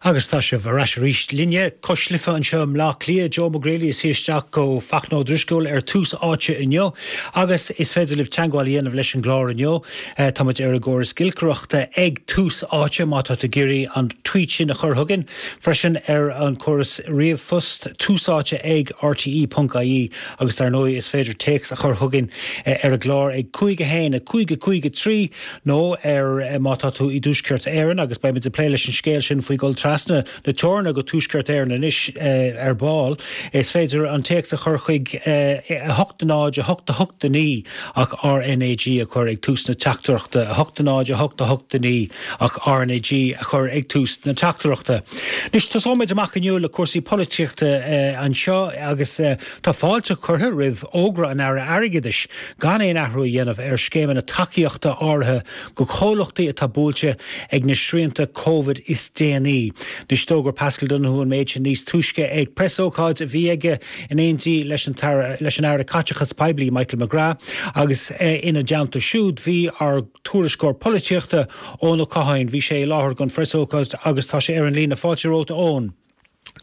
Agus tá sibh ar ais arís linne, Cois Life anseo i mBleá Cliath, Joe McGreely ag suí isteach do Fachtna Ó Drisceoil ar Tús Áite inniu agus is féidir libh teagmháil a dhéanamh leis an gclár inniu. Tá muid ar an gcóras giolcaireachta ag Tús Áite má tá tú ag iarraidh an tweet sin a chur chugainn. Freisin ar an córas ríomhphost, túsáite ag rte.ie agus dar ndóigh is féidir téacs a chur chugainn ar an gclár ag 5 1 5 5 3 nó ar má tá tú i dTuaisceart Éireann, agus beimid ag plé leis an scéal sin faoi dhul trasna na teorann go Tuaisceart Éireann anois ar ball, is féidir an téacs a chur chuig 8 0 8 8 9 ach RnaG a chur ag tús na teachtaireachta, 8 0 8 8 9 ach RnaG a chur ag tús na teachtaireachta. Anois, tosóimid amach inniu le cúrsaí polaitíochta anseo agus tá fáilte curtha roimh fhógra an Aire Airgeadais gan aon athrú a dhéanamh ar scéimeanna tacaíochta áirithe go comhlachtaí atá buailte ag na srianta Covid is déanaí. Anois d'fhógair Paschal Donohoe an méid sin níos túisce ag preasócáid a bhí aige in éindí leis an leis an Aire Caiteachais Poiblí Michael McGrath agus ina dteannta siúd bhí ár dtuairisceoir polaitíochta Eoin Ó Catháin. Bhí sé i láthair don phreasócáid agus tá sé ar an líne. Fáilte romhat a Eoin.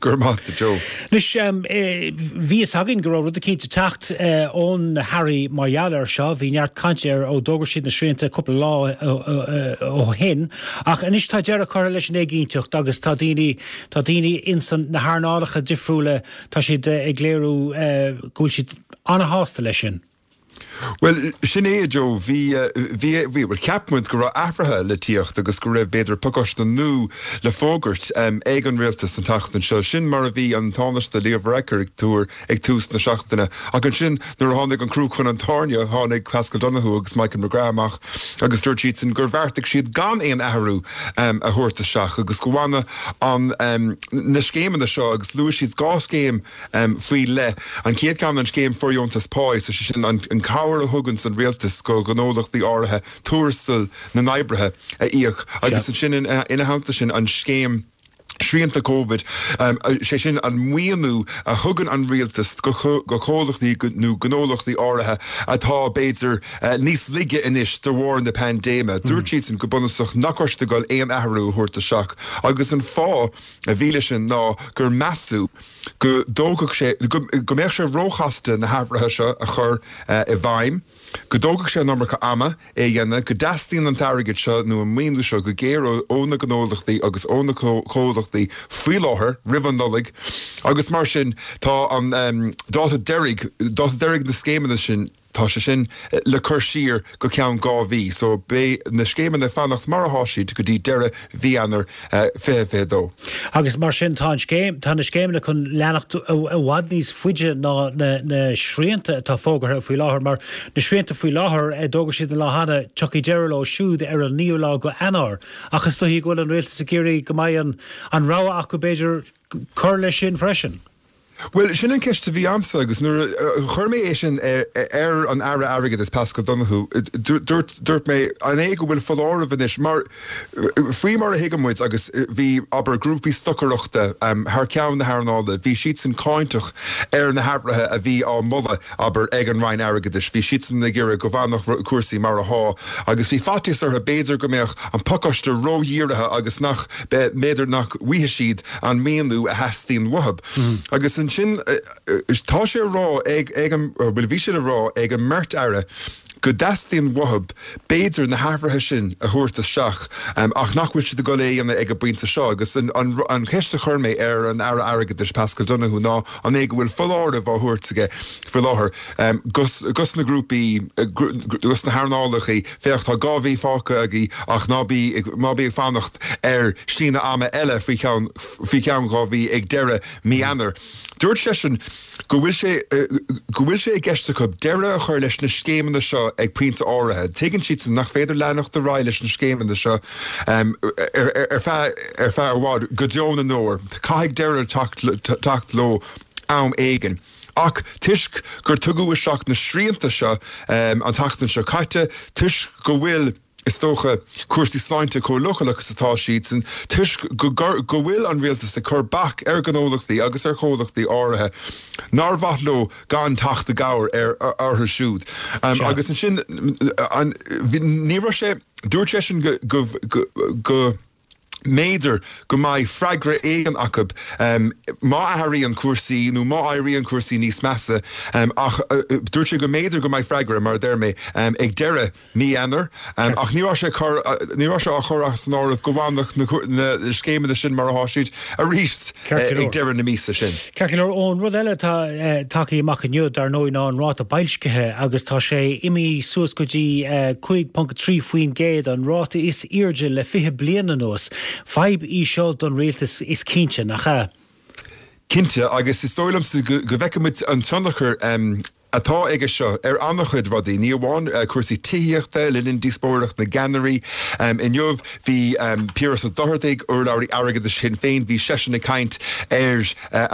Go raibh maith agat, a Joe. Anois, bhí fhios againn go raibh rud eicínt ag teacht ó na hairí mar gheall air seo. Bhí neart cainte air ó d'fhógair siad na srianta cúpla lá ó shin. Ach anois tá deireadh curtha leis an éiginnteacht agus tá daoine, tá daoine ins na hearnálacha difriúla, tá siad ag léiriú go bhfuil siad ana-shásta leis sin. Bhuel, sin é, a Joe. Bhí, bhí, bhí, bhuel, cheap muid go raibh athruithe le tíocht agus go raibh, b'fhéidir, pacáiste nua le fógairt ag an rialtas an tseachtain seo. Sin mar a bhí an Tánaiste Leo Varadkar ag tuar ag tús na seachtaine. Ach ansin, nuair a tháinig an crú chun an tairne, tháinig Paschal Donohoe agus Michael McGrath amach agus dúirt siadsan gur bheartaigh siad gan aon athrú a thabhairt isteach agus go bhfanadh an, na scéimeanna seo agus luaigh siad 2 scéim faoi leith. An chéad cheann, an scéim fóirdheontas páí, sé sin an cabhair a thuganns an rialtas go ghnólachtaí áirithe tuarastal na n-oibrithe a íoc agus ansin ina theannta sin an scéim srianta Covid, sé sin an maoiniú a thugann an rialtas go comhlachtaí nó gnólachtaí áirithe atá b'fhéidir níos laige anois de bharr na paindéime. Dúirt siadsan go bunúsach nach raibh siad ag dul aon athrú a thabhairt isteach agus an fáth a bhí leis sin ná gur measadh go dtógfadh sé, go mbeadh sé róchasta na hathruithe seo a chur i bhfeidhm, go dtógfadh sé an iomarca ama é a dhéanamh, go dteastaíonn an t-airgead seo nó an maoiniú seo go géar ó na gnólachtaí agus ó na comhlachtaí faoi láthair, roimh an Nollaig, agus mar sin tá an dáta deiridh, dáta deiridh na scéimeanna sin, Tá sé sin le cur siar go ceann 2 mhí, so beidh na scéimeanna ag fanacht mar athá siad go dtí deireadh mhí Eanáir 2022. Agus mar sin tá an scéim, tá na scéimeanna chun leanacht i bhfad níos faide ná na srianta atá fógartha faoi láthair, mar na srianta faoi láthair, d'fhógair siad an lá cheana, tiocfaidh deireadh leo siúd ar an 9ú lá go Eanáir. Ach is dóichí go bhfuil an rialtas ag iarraidh go mbeidh an rogha acu b'fhéidir cur leis sin freisin. Bhuel, sin an ceist a bhí a'msa agus nuair a chuir mé é sin ar an Aire Airgeadais, Paschal Donohoe, dúirt, dúirt mé, an é go bhfuil foláireamh anois, mar faoi mar a thuigeann muid agus bhí, abair, grúpaí stocaireachta thar ceann na hearnála, bhí siadsan cáinteach ar na hathruithe a bhí á moladh, abair, ag an Roinn Airgeadais, bhí siadsan ag iarraidh go bhfanfadh cúrsaí mar athá agus bhí faitíos orthu b'fhéidir go mbeadh an pacáiste ródhírithe agus nach, b'fhéidir nach bhfaighidh siad an maoiniú a theastaíonn uathu. Agus ansin tá sé a rá ag, ag an, bhuel bhí sé le rá ag an mbeirt aire go dteastaíonn uathu b'fhéidir na hathruithe sin a thabhairt isteach ach nach bhfuil siad ag dul é a dhéanamh ag an bpointe seo. Agus an, an, an cheist a chuir mé ar an Aire Airgeadais Paschal Donohoe ná an é go bhfuil foláireamh á thabhairt aige faoi láthair dos na grúpaí, dos na hearnálacha, féach tá 2 mhí fágtha agaibh ach ná bí, ná bí ag fanacht ar síneadh ama eile faoi cheann, faoi cheann 2 mhí ag deireadh mí Eanáir. Dúirt seisean go bhfuil sé, go bhfuil sé i gceist acu deireadh a chur leis na scéimeanna seo ag pointe áirithe. Tuigeann siadsan nach féidir leanacht ar aghaidh leis na scéimeanna seo ar feadh, ar feadh i bhfad, go deo na ndeor. Caithfidh deireadh teacht, teacht leo am éigin. Ach toisc gur tugadh isteach na srianta seo an tseachtain seo caite, toisc go bhfuil, is dócha, cúrsaí sláinte chomh leochaileach is atá siadsan, toisc go go bhfuil an rialtas ag cur bac ar ghnólachtaí agus ar chomhlachtaí áirithe nár mhaith leo gan teacht i gcabhair ar orthu siúd. Agus ansin, an, ní raibh sé, dúirt seisean go, go, go. Mb'fhéidir go mbeidh freagra éigin acu má athraíonn cúrsaí nó má éiríonn cúrsaí níos measa ach dúirt sé go mb'fhéidir go mbeidh freagra, mar a deir mé, ag deireadh mí Eanáir ach ní raibh sé ní raibh sé á chur as an áireamh go bhfanfadh na scéimeanna sin mar atá siad arís ag deireadh na míosa sin. Ceart go leor, Eoin, rud eile atá tagtha amach inniu, dar ndóigh, ná an ráta boilscithe agus tá sé imithe suas go dtí 5.3%, an ráta is airde le 20 bliain anuas. Fadhb í seo don rialtas, is cinnte, nach ea? Cinnte, agus is dóigh liomsa go bhfeicfidh muid an tionchar atá aige seo ar an-chuid rudaí, ní amháin cúrsaí tithíochta. Le linn díospóireacht na gceannairí inniu, bhí Piaras Ó Dochartaigh, urlabhraí airgeadais Shinn Féin, bhí seisean ag caint ar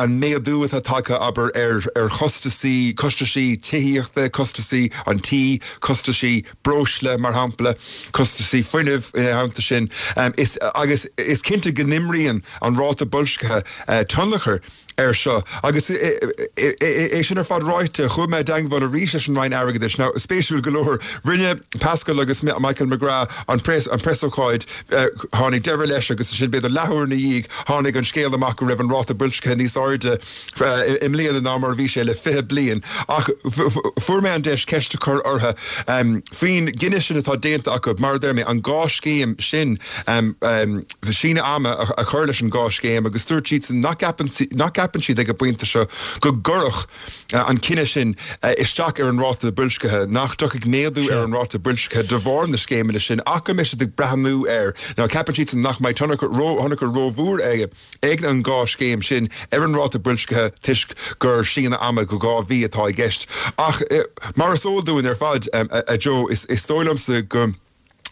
an méadú atá tagtha, abair, ar chostasaí, costaisí tithíochta, costasaí an tí, costaisí breosla, mar shampla, costasaí fuinnimh ina theannta sin. Is, agus is cinnte go n-imríonn an ráta boilscithe tionchar air seo. Agus é sin ar fad ráite, chuaigh mé i dteangmháil arís leis an Roinn Airgeadais. Now, spéisiúil go leor, rinne Paschal agus Michael McGrath an preasócáid, tháinig deireadh leis agus ansin b'fhéidir leathuair ina dhiaidh tháinig an scéal amach go raibh an ráta boilscithe níos airde i mbliana ná mar a bhí sé le 20 bliain. Ach fuair mé an deis ceist a chur orthu faoin gcinneadh sin atá déanta acu, mar a deir mé, an dhá scéim sin, síneadh ama a chur leis an dhá scéim agus dúirt siadsan nach gceapann nach gceapann siad ag an bpointe seo go gcuirfeadh an cinneadh sin isteach ar an ráta boilscithe, nach dtiocfaidh méadú ar an ráta boilscithe de bharr na scéimeanna sin ach go mbeidh siad ag breathnú air. Now ceapann siadsan nach mbeidh tionchar ró-thionchar rómhór ag an dhá scéim sin ar an ráta boilscithe toisc gur síneadh ama go 2 mhí atá i gceist. Ach mar is eol dúinn ar fad, a Joe, is dóigh liomsa go.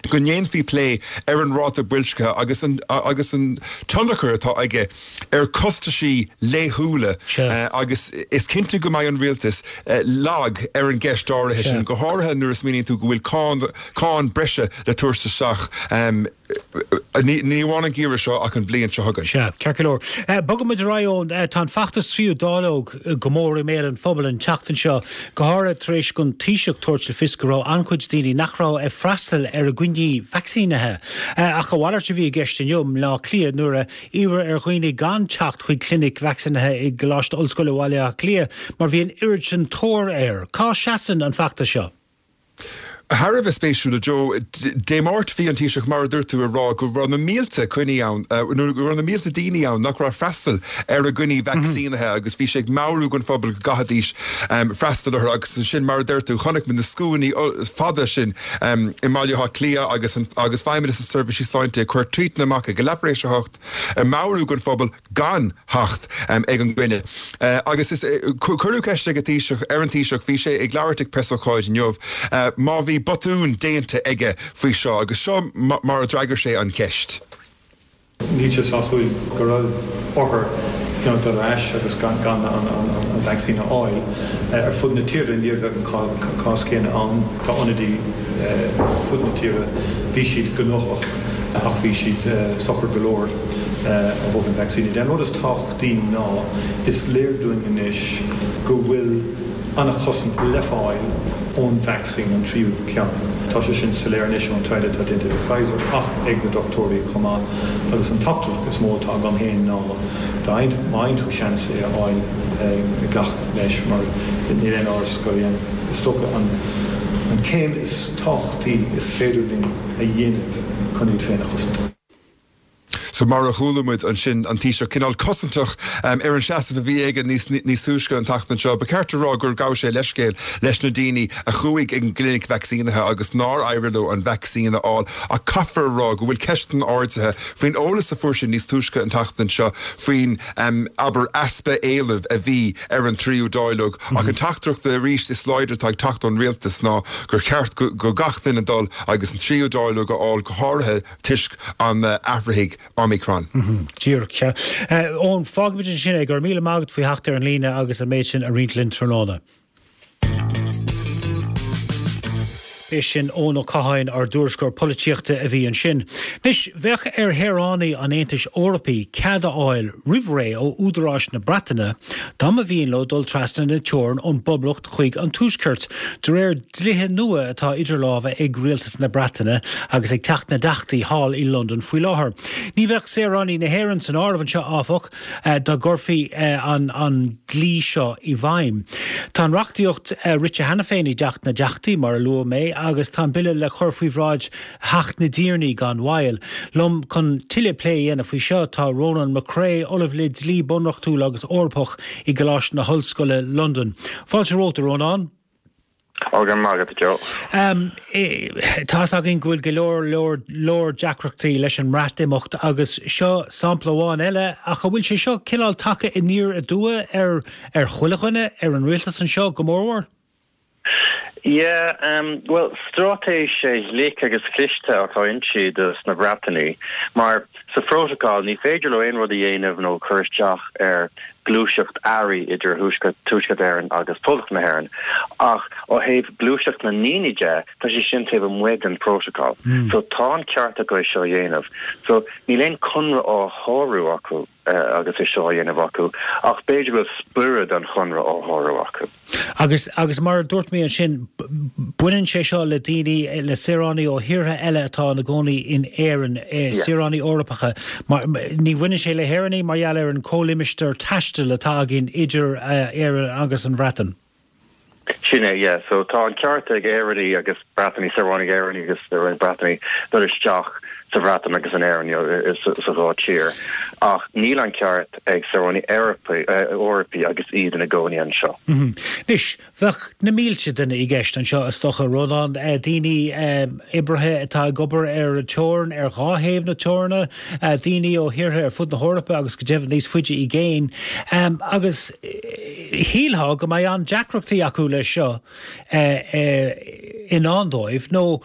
go ndéanfaí plé ar an ráta boilscithe agus an agus an tionchar atá aige ar chostaisí laethúla agus is cinnte go mbeidh an rialtas lag ar an gceist áirithe sin, go háirithe nuair a smaoiníonn tú go bhfuil cáin cáin breise le tabhairt isteach ní ní amháin an geimhreadh seo ach an bhliain seo chugainn. Sea, ceart go leor. Bogfaidh muid ar aghaidh Eoin. Tá an feachtas tríú dáileog go mór i mbéal an phobail an tseachtain seo. go háirithe tar éis don Taoiseach tabhairt le fios go raibh an-chuid daoine nach raibh ag freastal ar a gcoinní vacsaínithe. Ach a mhalairt a bhí i gceist inniu i mBleá Cliath nuair a iarradh ar dhaoine gan teacht chuig clinic vacsaínithe i gColáiste Ollscoile Bhaile Átha Cliath mar bhí an oiread sin tóir air. Cá seasann an feachtas seo? Thar a bheith spéisiúil, a Joe. Dé Máirt bhí an Taoiseach, mar a dúirt tú, ag rá go raibh na mílte coinní ann, nó go raibh na mílte daoine ann nach raibh ag freastal ar a gcoinní vacsaínithe agus bhí sé ag meabhrú don phobal go gcaithfidís freastal orthu agus ansin, mar a deir tú, chonaic muid na scuainí fada sin i mBaile Átha Cliath agus agus Feidhmeannas na Seirbhísí Sláinte ag cur tweetanna amach ag a leathuair tar éis a hocht ag meabhrú don phobal gan theacht ag an gcoinne. Agus is cuireadh ceist ag an Taoiseach, ar an Taoiseach, bhí sé ag labhairt ag preasócáid inniu, má bhí botún déanta aige faoi seo agus seo mar a d'fhreagair sé an cheist. Níl sé sásúil go raibh othair you know dul ar ais agus gan an vacsaín a fháil. Ar fud na tíre ní raibh an cás céanna ann. Tá ionadaí ar fud na tíre, bhí siad gnóthach ach bhí siad socair go leor. ó thaobh an vacsaíne de. An rud is tábhachtaí ná is léir dúinn anois go bhfuil an-chosaint le fáil ón vacsaín, an tríú ceann. Tá sé sin soiléir anois ón taighde atá déanta ag Pfizer ach ag na dochtúirí chomh maith agus an teachtaireacht is mó atá agam féin ná má fhaigheann tú seans é a fháil, glac leis mar níl aon amhras gurb é an, is dócha, an céim is tábhachtaí is féidir linn a dhéanamh chun iad féin a chosaint. So mar a chuala muid ansin an Taoiseach cineál cosantach ar an seasamh a bhí aige níos níos túisce an tseachtain seo, ba cheart a rá gur ghabh sé leithscéal leis na daoine a chuaigh ag an gclinic vacsaínithe agus nár éirigh leo an vacsaín a fháil ach caithfear a rá go bhfuil ceisteanna ardaithe faoin eolas a fuair sé níos túisce an tseachtain seo faoin abair easpa éilimh a bhí ar an tríú dáileog ach an teachtaireacht arís is láidre atá ag teacht ón rialtas ná gur cheart go gach duine dul agus an tríú dáileog a fháil go háirithe toisc an athraithigh Omicron. Díreach, sea. Eoin, fágfaimid ansin é. Go raibh míle maith agat faoi theacht ar an líne agus an méid sin a roinnt linn tráthnóna. B'é sin Eoin Ó Catháin, ár dtuairisceoir polaitíochta a bhí ansin. Anois, bheadh ar shaoránaigh an Aontais Eorpaigh cead a fháil roimh ré ó údaráis na Breataine dá mba mhian leo dul trasna na teorann ón bPoblacht chuig an Tuaisceart, de réir dlíthe nua atá idir lámha ag Rialtas na Breataine agus ag Teach na dTeachtaí thall i Londain faoi láthair. Ní bheadh saoránaigh na hÉireann san áireamh anseo, áfach. dá gcuirfí an dlí seo i bhfeidhm. Tá an reachtaíocht rite cheana féin i dTeach na dTeachtaí, mar a luaigh mé, agus tá an bille le cur faoi bhráid Theach na dTiarnaí gan mhoill. Liom chun tuilleadh plé a dhéanamh faoi seo tá Rónán Mac Craith, Ollamh le Dlí Bunreachtúil agus Eorpach i gColáiste na hOllscoile, Londain. Fáilte romhat, a Rónáin. Ó, go raibh maith agat, a Joe. Tá's againn go bhfuil go leor, leor, leor deacrachtaí leis an mBreatimeacht agus seo sampla amháin eile, ach an bhfuil sé seo cineál tagtha aniar aduaidh ar, ar chuile dhuine, ar an rialtas anseo go mórmhór? Yeah, bhuel, straitéis ghlic agus chliste atá inti dos na Breatanaigh, mar sa phrótacal ní féidir leo aon rud a dhéanamh nó cur isteach ar gluaiseacht earraí idir Tuaisceart Éireann agus Poblacht na hÉireann. Ach ó thaobh gluaiseacht na ndaoine de, tá sé sin taobh amuigh den phrótacal. So tá an ceart acu é seo a dhéanamh. So níl aon conradh á shárú acu agus é seo á dhéanamh acu, ach b'fhéidir go bhfuil spiorad an chonradh á shárú acu. Agus, agus mar a dúirt mé ansin, baineann sé seo le daoine, le saoránaigh ó thíortha eile atá ina gcónaí in Éirinn, saoránaigh Eorpacha. Mar, ní bhaineann sé le hÉireannaigh mar gheall ar an comhlimistéar taistil atá againn idir Éirinn agus an Bhreatain. Sin é, yeah. So tá an ceart ag Éireannaigh agus Breatanaigh, saoránaigh Éireannaigh agus saoránaigh Breatanaigh dul isteach sa Bhreatain agus in Éirinn, you know, sa dhá tír. Ach níl an ceart ag saoránaigh Eorpaigh agus iad ina gcónaí anseo. Anois, bheadh na mílte duine i gceist anseo, is dócha, Rónán, daoine, oibrithe atá ag obair ar an teorainn, ar dhá thaobh na teoranna, daoine ó thíortha ar fud na hEorpa agus go deimhin níos faide i gcéin. Agus shílfeá go mbeidh an-deacrachtaí acu leis seo. i ndán dóibh, nó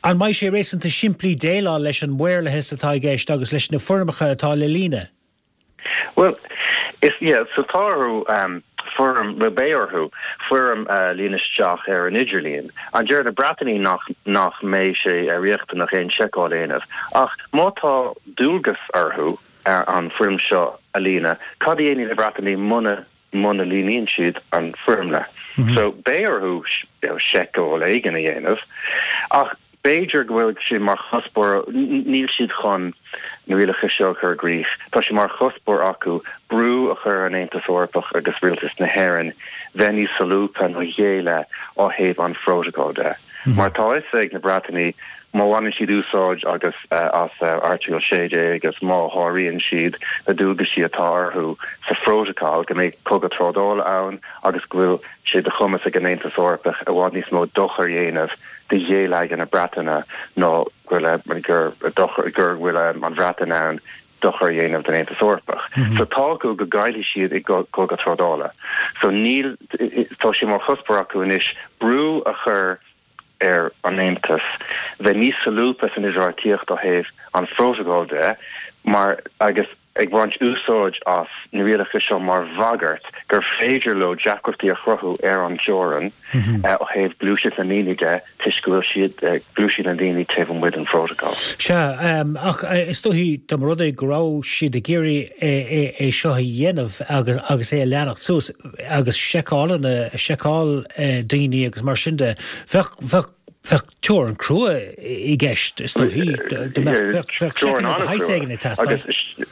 an mbeidh sé réasúnta simplí déileáil leis an maorlathas atá i gceist agus leis na foirmeacha atá le líonadh? Bhuel, is, yeah, so tá orthu foirm, bhuel beidh orthu foirm a líonadh isteach ar an idirlíon. An deir na Breatanaigh nach, nach mbeidh sé riachtanach aon seiceáil a dhéanamh. Ach má tá dualgas orthu an foirm seo a líonadh, cad a dhéanfaidh na Breatanaigh muna muna líonann siad an foirmle. So beidh orthu seiceáil éigin a dhéanamh ach b'fhéidir go bhfuil sé mar chuspóir, níl siad chun na rialacha seo a chur i gcrích, tá sé mar chuspóir acu brú a chur ar an Aontas Eorpach agus Rialtas na hÉireann bheith níos solúbtha ná a chéile ó thaobh an phrótacail de. Mar tá a fhios ag na Breatanaigh má bhaineann siad úsáid agus as Airteagal 16 agus má sháraíonn siad na dualgaisí atá orthu sa phrótacal go mbeidh cogadh trádála ann agus go bhfuil sé de chumas ag an Aontas Eorpach i bhfad níos mó dochar a dhéanamh do gheilleagar na Breataine ná go bhfuil an Bhreatain in ann dochar a dhéanamh don Aontas Eorpach. So tá acu go gcaillfidh siad i gcogadh trádála. So níl, tá sé mar chuspóir acu anois brú a chur ar an Aontas bheith níos solúbtha san idirbheartaíocht ó thaobh an phrótacail de mar agus ag baint úsáid as na rialacha seo mar bhagairt gur féidir leo deacrachtaí a chruthú ar an teorainn ó thaobh gluaiseacht na ndaoine de toisc go bhfuil siad gluaiseacht na ndaoine taobh amuigh den phrótacal. Sea, ach is dóichí dá mba rud é go raibh siad ag iarraidh é seo a dhéanamh agus é a leanacht suas agus seiceálanna, seiceáil daoine agus mar sin de, bheadh, bheadh, bheadh teorainn crua i gceist, is dóichí, dá mbeadh, bheadh, bheadh seiceanna de shaghas éigin ag teastáil.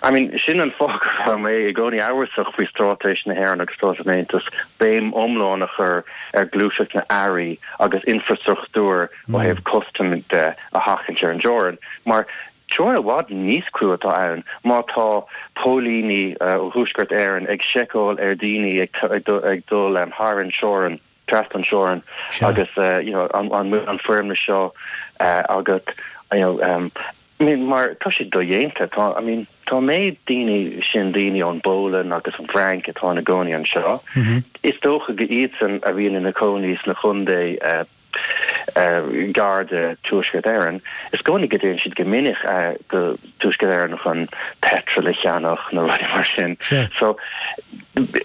I mean, sin an fáth go raibh mé i gcónaí amhrasach faoi straitéis na hÉireann agus straitéis an Aontais béim iomlán a chur ar ghluaiseacht na n-earraí agus infreastruchtúr ó thaobh custaim de a sheachaint ar an dteorainn, mar teorainn i bhfad níos crua atá ann má tá póilíní ó Thuaisceart Éireann ag seiceáil ar dhaoine ag dul thar an teorainn, trasna an teorainn agus you know an bhfuil an foirmle seo agat you know I mean mar tá sé dodhéanta tá I mean tá an méid daoine sin daoine ón bPólainn agus an bhFrainc atá ina gcónaí anseo is dócha go iadsan a bhíonn ina cónaí sna chontae gar do Tuaisceart Éireann is dócha go dtéann siad go minic go Tuaisceart Éireann chun petrol a cheannach nó rudaí mar sin so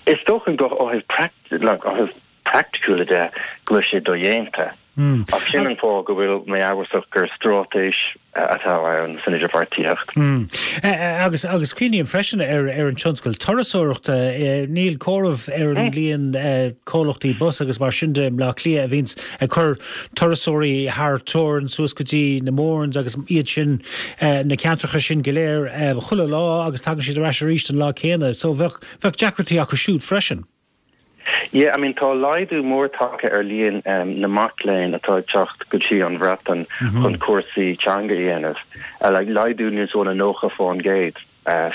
is dócha go ó thaobh like ó thaobh praiticiúla de go bhfuil sé dodhéanta. Ach sin an fáth go bhfuil mé amhrasach gur straitéis atá ann san idirbheartaíocht. Agus agus cuimhním freisin ar ar an tionscal turasóireachta. Níl comhaireamh ar an líon comhlachtaí bus agus mar sin de i mBleá Cliath a bhíonns ag cur turasóirí thar teorainn suas go dtí na Mournes agus iad sin, na ceantracha sin go léir chuile lá agus tagann siad ar ais arís an lá céanna. So bheadh bheadh deacrachtaí acu siúd freisin. Yeah, I mean tá laghdú mór tagtha ar líon na mac léinn atá ag teacht go dtí an Bhreatain chun cúrsaí teanga a dhéanamh, like laghdú níos mó ná 90%.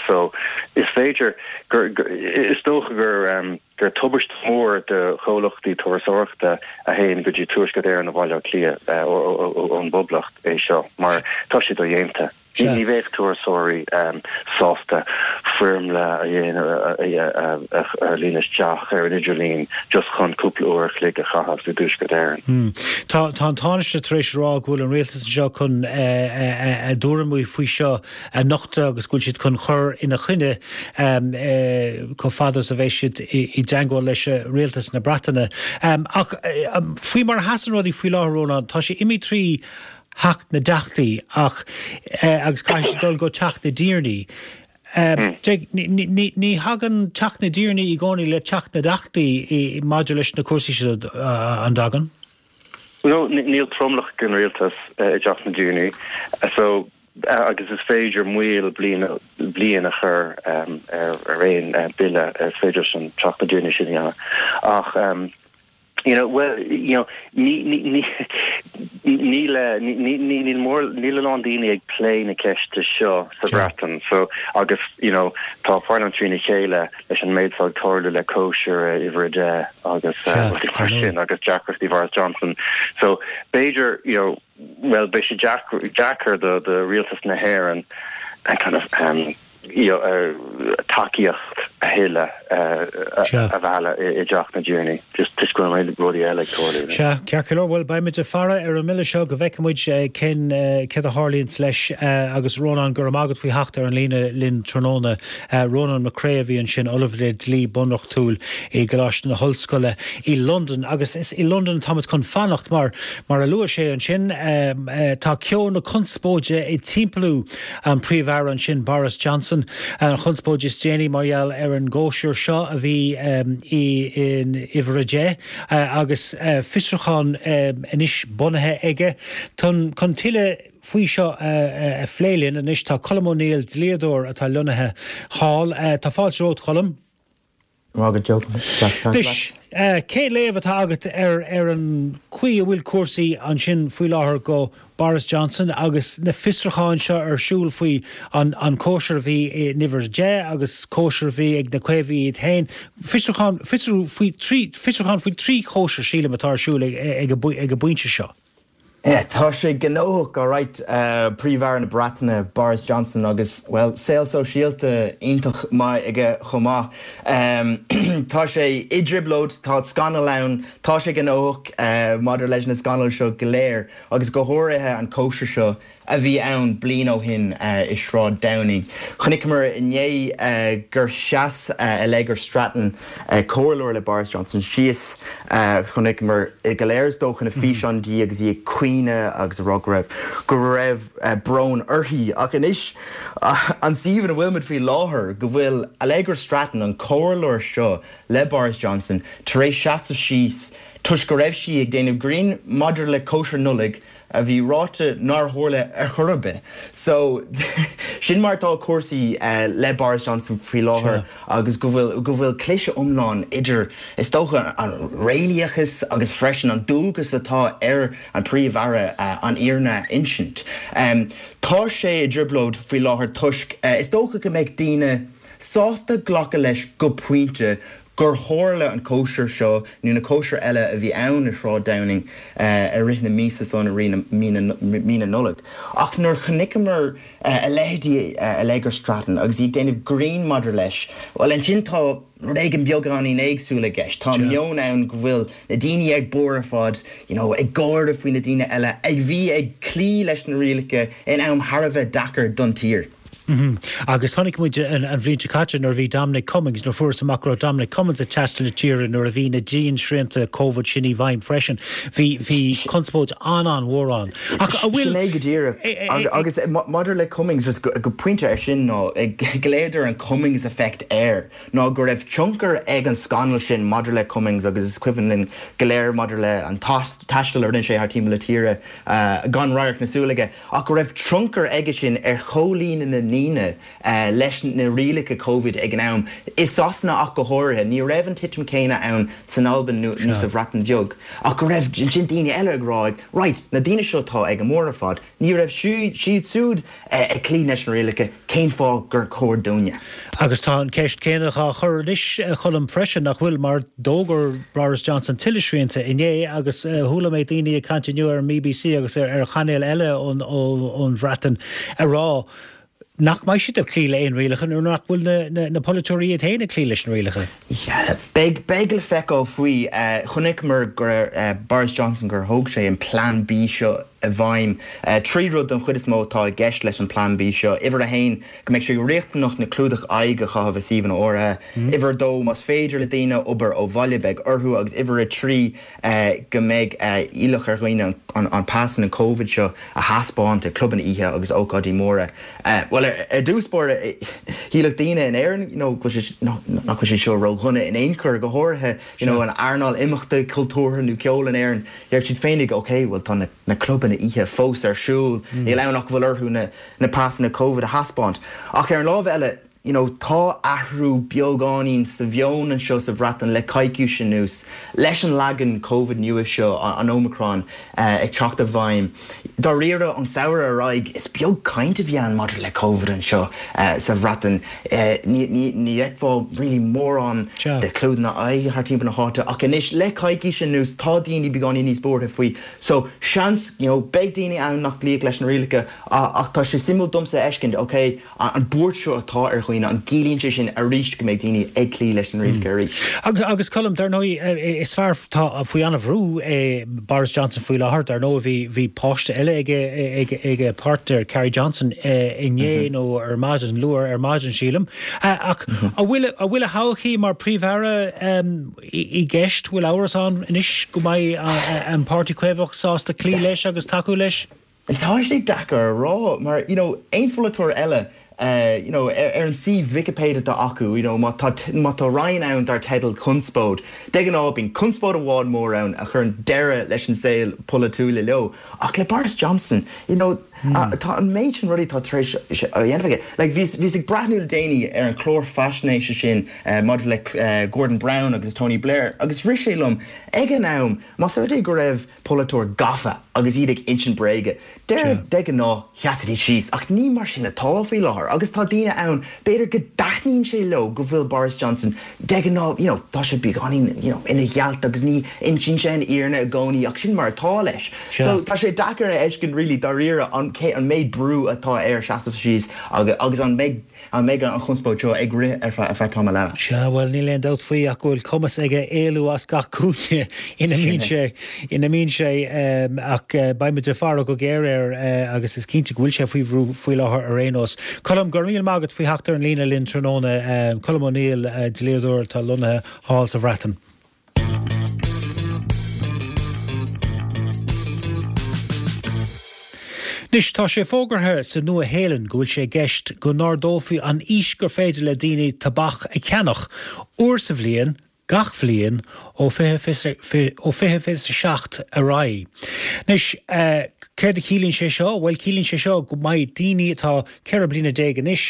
So is féidir gur, is dócha gur gur tubaiste mór do chomhlachtaí turasóireachta a théann go dtí Tuaisceart Éireann ó Bhaile Átha Cliath ón bPoblacht é seo mar tá sé dodhéanta. Ní bheadh turasóirí sásta foirmle a dhéanamh a líonadh isteach ar an idirlíon just chun cúpla uair a chloig a chaitheamh i dTuaisceart Éireann. Tá an Tánaiste tar éis a rá go bhfuil an rialtas anseo chun a dtuairimí faoi seo a nochtadh agus go bhfuil siad chun cur ina choinne chomh fada is a bheidh siad i dteangmháil leis rialtas na Breataine. Ach faoi mar a sheasann rudaí faoi láthair, Rónán, tá sé imithe trí Theach na dTeachtaí ach agus caithfidh sé dul go Teach na dTiarnaí. Ní thagann Teach na dTiarnaí i gcónaí le Teach na dTeachtaí maidir leis na cúrsaí seo, an dtagann? No, níl tromlach ag an rialtas i dTeach na dTiarnaí so agus is féidir moill bliain bliain a chur ar aon bille, is féidir leis an Teach na dTiarnaí sin a dhéanamh ach You know, well, you know, ní, ní, ní, níl, ní, ní, níl mór, níl a lán daoine ag plé na ceiste seo sa Bhreatain, so, agus, you know, tá parlaimint trína chéile leis an méid atá ag tarlú le cóisir uimhir 10 agus rudaí mar sin agus deacrachtaí Boris Johnson. So, b'fhéidir, you know, well, beidh sé deacair do, do rialtas na hÉireann kind of, um, tacaíocht a thuilleadh a mhealladh i dTeach na dTiarnaí just toisc go bhfuil rudaí eile ag tarlú. Sea, ceart go leor, bhuel beimid ag faire ar an mbille seo go bhfeicfidh muid cén céard a tharlaíonns leis agus Rónán, go raibh maith agat faoi theacht ar an líne linn tráthnóna. Rónán Mac Craith a bhí ansin, Ollamh le Dlí Bunreachtúil i gColáiste na hOllscoile i Londain agus is i Londain atáimid chun fanacht mar, mar a luaigh sé ansin, tá ceo na conspóide ag timpeallú An Príomh-Aire ansin, Boris Johnson, an chonspóid is déanaí mar gheall ar an gcóisir seo a bhí in uimhir a 10 agus fiosrúchán anois bunaithe aige. Chun tuilleadh faoi seo a phlé linn anois tá Colm O'Neill, dlíodóir atá lonnaithe thall. Tá fáilte romhat, Colm. Anois, cén léamh atá agat ar ar an chaoi a bhfuil cúrsaí ansin faoi láthair go Boris Johnson agus na fiosrúcháin seo ar siúl faoi an an cóisir a bhí in uimhir 10 agus cóisir a bhí ag na Caomhaigh iad féin. Fiosrúchán, fiosrú faoi fiosrúchán faoi thrí chóisir, sílim, atá ar siúl ag ag an bpointe seo. Tá sé gnóthach, alright, Príomh-Aire na Breataine, Boris Johnson, agus, bhuel, saol sóisialta iontach maith aige chomh maith. Tá sé i dtrioblóid, tá scannal ann, tá sé gnóthach maidir leis na scannail seo go léir, agus go háirithe an cóisir seo a bhí ann bliain ó shin i Sráid Downing. Chonaiceamar inné gur sheas Allegra Stratton, comhairleoir le Boris Johnson, síos. Chonaiceamar go léir is dócha na físeáin di agus í ag caoineadh agus ag rá go raibh go raibh brón uirthi. Ach anois, an suíomh ina bhfuilimid faoi láthair, go bhfuil Allegra Stratton, an comhairleoir seo le Boris Johnson, tar éis seasamh síos toisc go raibh sí ag déanamh grinn maidir le cóisir Nollag a bhí ráite nár tharla ar chor ar bith. So, sin mar atá cúrsaí le Boris Johnson faoi láthair agus go bhfuil, go bhfuil cliseadh iomlán idir, is dócha, an réalaíochas agus freisin an dualgas atá ar an Príomh-Aire an fhírinne a insint. Tá sé i dtrioblóid faoi láthair toisc, is dócha go mbeadh daoine sásta glacadh leis go pointe gur tharla an cóisir seo nó na cóisir eile a bhí ann i Sráid Downing i rith na míosa san, i rith mí na Nollag. Ach nuair chonaiceamar a leithéidí Allegra Stratton agus í ag déanamh grinn maidir leis, bhuel ansin tá rud éigin beagáinín éagsúil i gceist. Tá meon ann go bhfuil na daoine ag barr ar fad, you know, ag gáire faoi na daoine eile a bhí ag cloí leis na rialacha in am thar a bheith deacair don tír. Agus chonaic muid an bhliain seo caite nuair a bhí Dominic Cummings, nuair a fuarthas amach go raibh Dominic Cummings ag taisteal na tíre nuair a bhí na diansrianta Covid sin i bhfeidhm freisin, bhí, bhí conspóid an-an-mhór ann. Ach a bhfuil. Sin é go díreach. Agus maidir le Cummings, just go pointe ar sin ná, glaodar an Cummings effect air, ná go raibh tionchar ag an scannal sin maidir le Cummings agus is cuimhin linn go léir maidir le an taisteal a rinne sé thar timpeall na tíre gan radharc na súl aige. ach go raibh tionchar aige sin ar chomhlíonadh na ndaoine leis na rialacha Covid ag an am, i Sasana ach go háirithe. Ní raibh an titim céanna ann san Albain nó sa Bhreatain Bheag, ach go raibh ansin daoine eile ag rá, right, na daoine seo atá ag an mbarr ar fad, ní raibh siad siúd ag cloí leis na rialacha, cén fáth gur chóir dúinne? Agus tá an ceist céanna dhá chur anois, a Choilm, freisin, nach bhfuil, mar d'fhógair Boris Johnson tuilleadh srianta inné agus chuala mé daoine ag caint inniu ar an mBBC agus ar chainéil eile ón Bhreatain ag rá nach mbeidh siad ag cloí le aon rialacha nuair nach bhfuil na polaiteoirí iad féin ag cloí leis na rialacha. Beidh, beidh le feiceáil faoi. Chonaiceamar gur Boris Johnson gur thóg sé an Plean B seo i bhfeidhm. 3 rud don chuid is mó atá i gceist leis an Plean B seo. Uimhir a haon, go mbeidh sé riachtanach na clúdach aghaidh a chaitheamh i suíomhanna áirithe. Uimhir a dó, más féidir le daoine obair ó bhaile, beidh orthu. Agus uimhir a 3, go mbeidh iallach ar dhaoine an pasanna Covid seo a thaispeáint ag clubanna oíche agus ócáidí móra. Bhuel, ar dtús báire, shílfeadh daoine in Éirinn you know go bhfuil sé, nach bhfuil sé seo ródhona in aon chor, go háirithe you know an earnáil imeachta cultúrtha nó ceoil in Éirinn. Déarfadh siad féinig, ok, bhuel tá na clubanna oíche fós ar siúl, níl ann ach go bhfuil orthu na na pasanna Covid a thaispeáint. Ach ar an lámh eile, you know, tá athrú beagáinín sa mheon anseo sa Bhreatain le coicís anuas, leis an leagan Covid nua seo, an Omicron, ag teacht i bhfeidhm. Dáiríre, ón samhradh ar aghaidh, is beag caint a bhí ann maidir le Covid anseo sa Bhreatain. Ní fheicfeá really mórán de chlúdanna aghaidhe thar timpeall na háite ach anois, le coicís anuas, tá daoine beagáinín níos buartha faoi. So, seans, you know, beidh daoine ann nach gcloífidh leis na rialacha ach tá sé suimiúil domsa a fheiscint, ok, an buairt seo atá ar dhaoine, an gciallaíonn sé sin arís go mbeidh daoine ag cloí leis na rialacha arís? Agus Colm, dar ndóigh, is fear atá faoi an-bhrú é Boris Johnson faoi láthair. Dar ndóigh, bhí, bhí páiste eile aige, ag, ag a pháirtnéir Carrie Johnson inné nó ar maidin, luath ar maidin, sílim. Ach an bhfuil, an bhfuil a thodhchaí mar Phríomh-Aire i gceist? Bhfuil amhras ann anois go mbeidh an Páirtí Caomhach sásta cloí leis agus tacú leis? Tá sé deacair a rá mar you know aon pholaiteoir eile you know ar an suíomh Wikipedia atá acu you know má tá má tá roinn ann dar teideal conspóid, de ghnáth bíonn conspóid amháin mór ann a chuireann deireadh leis an saol polaitiúil leo ach le Boris Johnson you know tá an méid sin rudaí atá tar éis a dhéanamh aige. Like bhíos bhíos ag breathnú le déanaí ar an chlár faisnéise sin maidir le Gordon Brown agus Tony Blair agus rith sé liom ag an am más rud é go raibh polaiteoir gafa agus iad ag insint bréige. Deir de ghnáth, sheasfaidís síos, ach ní mar sin atá faoi láthair agus tá daoine ann, b'fhéidir go dtaitníonn sé leo go bhfuil Boris Johnson de ghnáth, you know, tá sé beagáinín, you know, ina ghealt agus ní insíonn sé an fhírinne i gcónaí ach sin mar atá leis. So tá sé deacair a fheiscint really dáiríre an cé an méid brú atá air seasamh síos agus an mbeidh An mbeidh an chonspóid seo ag rith ar feadh tamall eile? Sea, bhuel, níl aon dabht faoi ach go bhfuil cumas aige éalú as gach cúinne ina mbíonn sé, ina mbíonn sé, ach beidh muid ag faire go géar air agus is cinnte go bhfuil sé faoi bhrú faoi láthair ar aon nós. Colm, go raibh míle maith agat faoi theacht ar an líne linn tráthnóna. Colm O'Neill, dlíodóir atá lonnaithe thall sa Bhreatain. Anois, tá sé fógartha sa Nua-Shéalainn go bhfuil sé i gceist go n-ardófaí an aois gur féidir le daoine tobac a cheannach, uair sa bhliain, gach bhliain, ó 2027 ar aghaidh. Anois, céard a chiallaíonn sé seo? Bhuel, ciallaíonn sé seo go mbeidh daoine atá 14 bliana anois,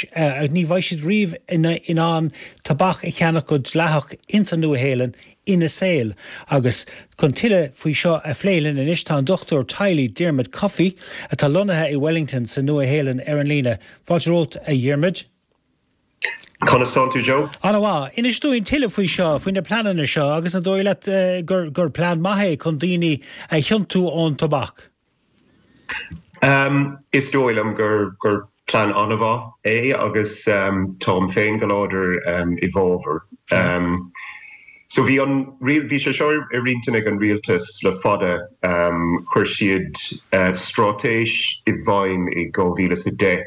ní bheidh siad riamh in ann tobac a cheannach go dleathach ins an Nua-Shéalainn ina saol. Agus chun tuilleadh faoi seo a phlé linn anois tá an dochtúir teaghlaigh Diarmuid Coffey, atá lonnaithe i Wellington sa Nua-Shéalainn ar an líne. Fáilte romhat, a Dhiarmuid. Conas tánn tú, Joe? An-mhaith. Inis dúinn tuilleadh faoi seo, faoi na pleananna seo agus an dóigh leat gur plean maith é chun daoine a thiontú ón tobac? Is dóigh liom gur plean an-mhaith é agus táim féin go láidir i bhfabhar. So bhí an, bhí sé seo ar intinn ag an rialtas le fada. Chuir siad straitéis i bhfeidhm i 2010.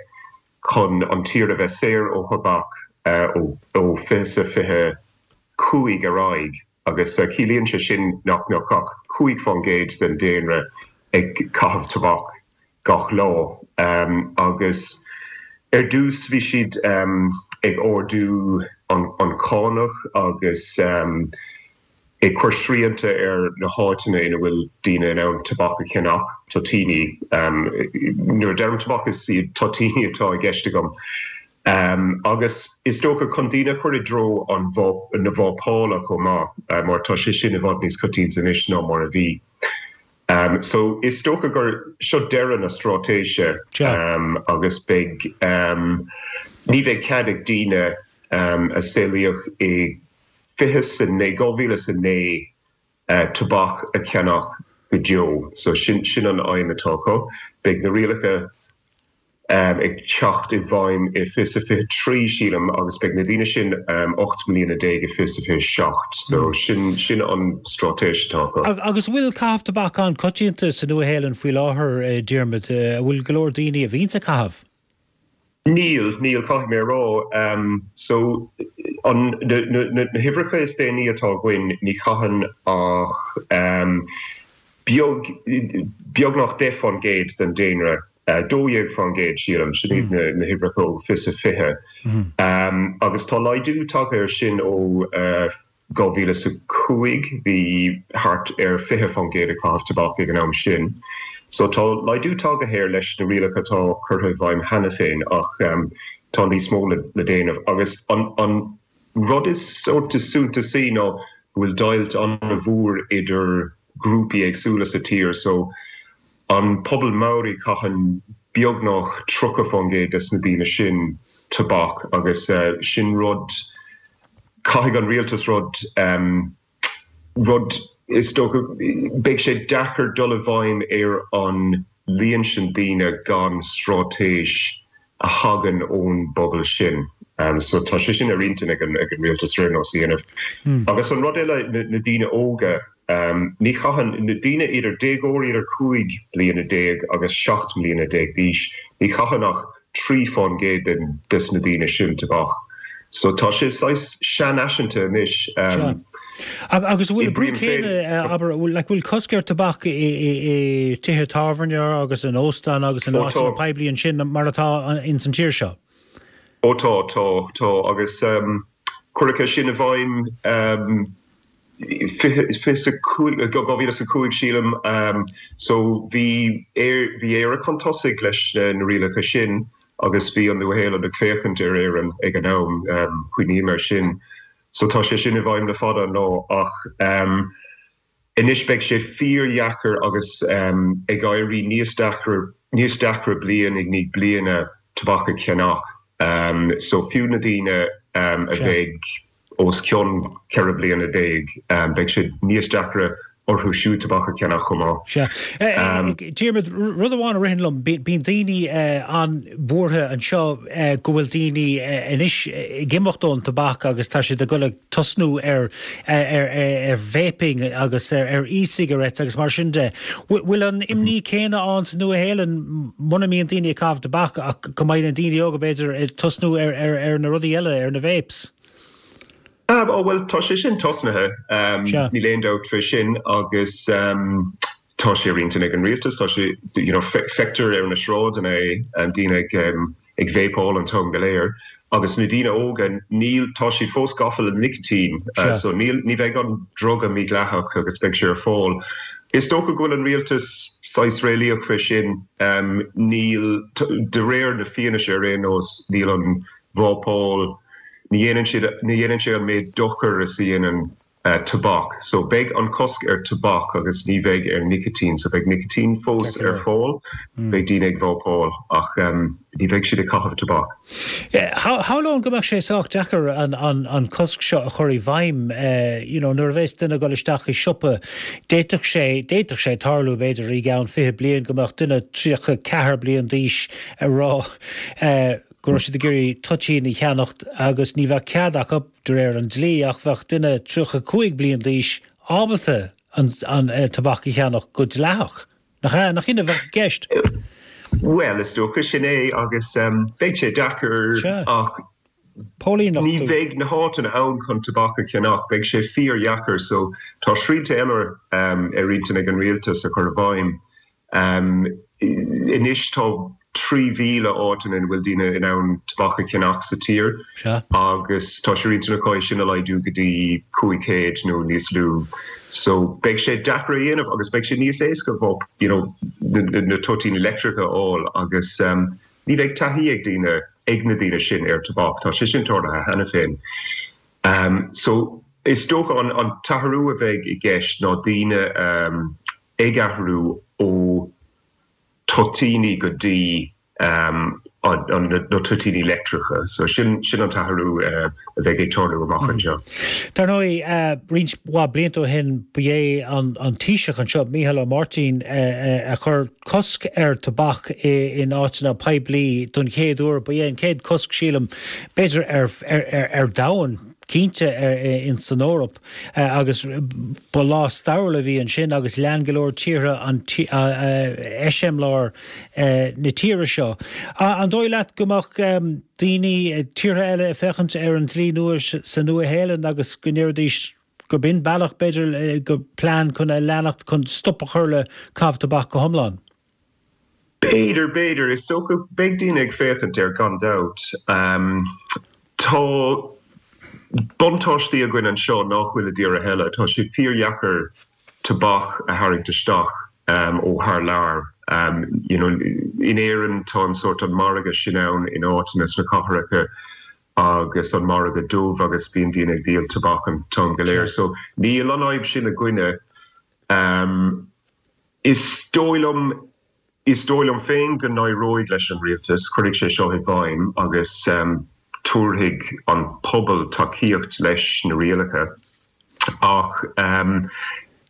chun an tír a bheith saor ó thobac ó 2025 ar aghaidh agus ciallaíonn sé sin nach mbeadh ach 5% den daonra ag caitheamh tobac gach lá. Agus ar dtús bhí siad ag ardú an chánach agus ag cur srianta ar na háiteanna ina bhfuil daoine in ann tobac a cheannach, toitíní. Nuair a deirim tobac is iad toitíní atá i gceist agam. Agus is dócha chun daoine a chur i dtreo an na vápála chomh maith, mar tá sé sin i bhfad níos coitianta anois ná mar a bhí. So is dócha gur seo deireadh na straitéise agus beidh, ní bheidh cead ag daoine a saolaíodh i 29, 2009 tobac a cheannach go deo. So sin, sin an aidhm atá acu. Beidh na rialacha ag teacht i bhfeidhm i 2023, sílim, agus beidh na daoine sin 18 mbliana i 2027. So sin, sin an straitéis atá acu. Agus an bhfuil caitheamh tobac an-coitianta sa Nua-Shéalainn faoi láthair, Diarmuid? An bhfuil go leor daoine a bhíonns ag caitheamh? Níl, níl, caithfidh mé a rá. So, an, na, na, na huimhreacha is déanaí atá againn, ní chaitheann ach beag, beagnach 10% den daonra, 12% sílim, sin iad na, na huimhreacha ó 2020. Agus tá laghdú tagtha air sin ó 2005, bhí thart ar 20% ag caitheamh tobac ag an am sin. So tá laghdú tagtha air leis na rialacha atá curtha i bhfeidhm cheana féin ach tá níos mó le déanamh. Agus an rud is sórt is suntasaí ná go bhfuil deighilt an-mhór idir grúpaí éagsúla sa tír. So an pobal Maori caitheann beagnach 30% des na daoine sin tobac agus sin rud Caithfidh an rialtas rud, rud, is dócha, beidh sé deacair dul i bhfeidhm ar an líon sin daoine gan straitéis a thagann ón bpobal sin. So tá sé sin ar intinn ag an rialtas ar aon nós a dhéanamh. Agus an rud eile, na daoine óga, ní chaitheann, na daoine idir déagóirí idir 15 bliana agus 17 mbliana d'aois, ní chaitheann ach 3% den des na daoine sin tobac. So tá sé saghas seanfhaiseanta anois. Sea. Agus an bhfuil an brú céanna, abair, bhfuil like bhfuil cosc ar tobac i i tithe tábhairne agus in óstáin agus in áiteanna poiblí ansin mar atá ins an tír seo? Ó tá, tá, tá agus cuireadh é sin i bhfeidhm 2005, 2005 sílim. So bhí bhí Éire chun tosaigh leis na rialacha sin agus bhí an Nua-Shéalainn ag féachaint ar Éirinn ag an am, cuimhním air sin. So tá sé sin i bhfeidhm le fada an lá ach anois beidh sé fíordheacair agus ag éirí níos deacra níos deacra bliain i ndiaidh bliana tobac a cheannach. So fiú na daoine a bheidh os cionn 14 bliana, beidh sé níos deacra orthu siúd tobac a cheannach chomh maith. Sea. Diarmuid, rud amháin a ritheann liom, bíonn daoine an-bhuartha anseo go bhfuil daoine anois ag imeacht ón tobac agus tá siad ag dul ag tosnú ar vaping agus ar e-cigarettes agus mar sin de. Bhfuil an imní céanna ann sa Nua-Shéalainn muna mbíonn daoine ag caitheamh tobac ach go mbeidh na daoine óga b'fhéidir ag tosnú ar na rudaí eile, ar na vapes? Ó bhuel, tá sé sin tosnaithe, níl aon dabht fé sin agus tá sé ar intinn ag an rialtas, tá sé, you know, feictear ar na sráideanna é, daoine ag ag vapáil an t-am go léir agus na daoine óga, níl, tá siad fós gafa le nicitín so níl, ní bheidh an druga mídhleathach agus beidh sé ar fáil. Is dócha go bhfuil an rialtas saghas réalaíoch fé sin, níl, de réir na fianaise ar aon nós, níl an vápáil, ní dhéanann siad, ní dhéanann sé an méid dochair is a dhéanann tobac. So beidh an cosc ar tobac agus ní bheidh ar nicitín. So beidh nicitín fós ar fáil, beidh daoine ag vápáil ach ní bheidh siad ag caitheamh tobac. Shamhlóinn go mbeadh sé sách deacair an cosc seo a chur i bhfeidhm, you know, nuair a bheas duine ag dul isteach i siopa, d'fhéadfadh sé, d'fhéadfadh sé tarlú b'fhéidir i gceann 20 bliain go mbeadh duine 34 bliain d'aois ag rá, go raibh siad ag iarraidh toitín a cheannacht agus ní bheadh cead acu, de réir an dlí, ach bheadh duine 35 bliain d'aois ábalta an tobac a cheannach go dleathach. Nach ea? Nach in a bheadh i gceist? Bhuel, is dócha sin é agus beidh sé deacair ach ní bheidh na háiteanna ann chun tobac a cheannach, beidh sé fíordheacair so tá srianta eile ar intinn ag an rialtas a chur i bhfeidhm. Anois tá 3,000 áiteanna ina bhfuil daoine in ann tobac a cheannach sa tír agus tá sé ar intinn acu é sin a laghdú go dtí 500 nó níos lú. So beidh sé deacair a dhéanamh agus beidh sé níos éasca you know na toitíní leictreacha a fháil agus ní bheidh taithí ag daoine, ag na daoine sin ar tobac. Tá sé sin tarlaithe cheana féin. So is dócha an t-athrú a bheidh i gceist ná daoine ag athrú ó toitíní go dtí na toitíní leictreacha. So sin sin an t-athrú a bheidh ag tarlú amach anseo. Dar ndóigh, roinnt mhaith blianta ó shin ba é an Taoiseach anseo, Mícheál Ó Máirtín, a chuir cosc ar tobac in áiteanna poiblí don chéad uair. Ba é an chéad cosc, sílim, b'fhéidir ar domhan, cinnte in san Eoraip. Agus ba lá stairiúil a bhí ansin agus lean go leor tíortha an eiseamláir na tíre seo. An dóigh leat go mbeadh daoine, tíortha eile ag féachaint ar an dlí nua sa Nua-Shéalainn agus go ndéarfaidís gurb in bealach, b'fhéidir, go plean chun a leanacht chun stop a chur le caitheamh tobac go hiomlán? B'fhéidir, b'fhéidir. Is dócha, beidh daoine ag féachaint air gan dabht. Tá buntáistí againn anseo nach bhfuil i dtíortha eile. Tá sé fíordheacair tobac a tharraingt isteach ó thar lear. You know, in Éirinn tá an sórt an margadh sin ann in áiteanna sna cathracha agus an margadh dubh agus bíonn daoine ag díol tobac an t-am go léir. So níl an fhadhb sin againne. Is dóigh liom, is dóigh liom féin go n-éireoidh leis an rialtas, cuirfidh sé seo i bhfeidhm agus tabharfaidh an pobal tacaíocht leis na rialacha ach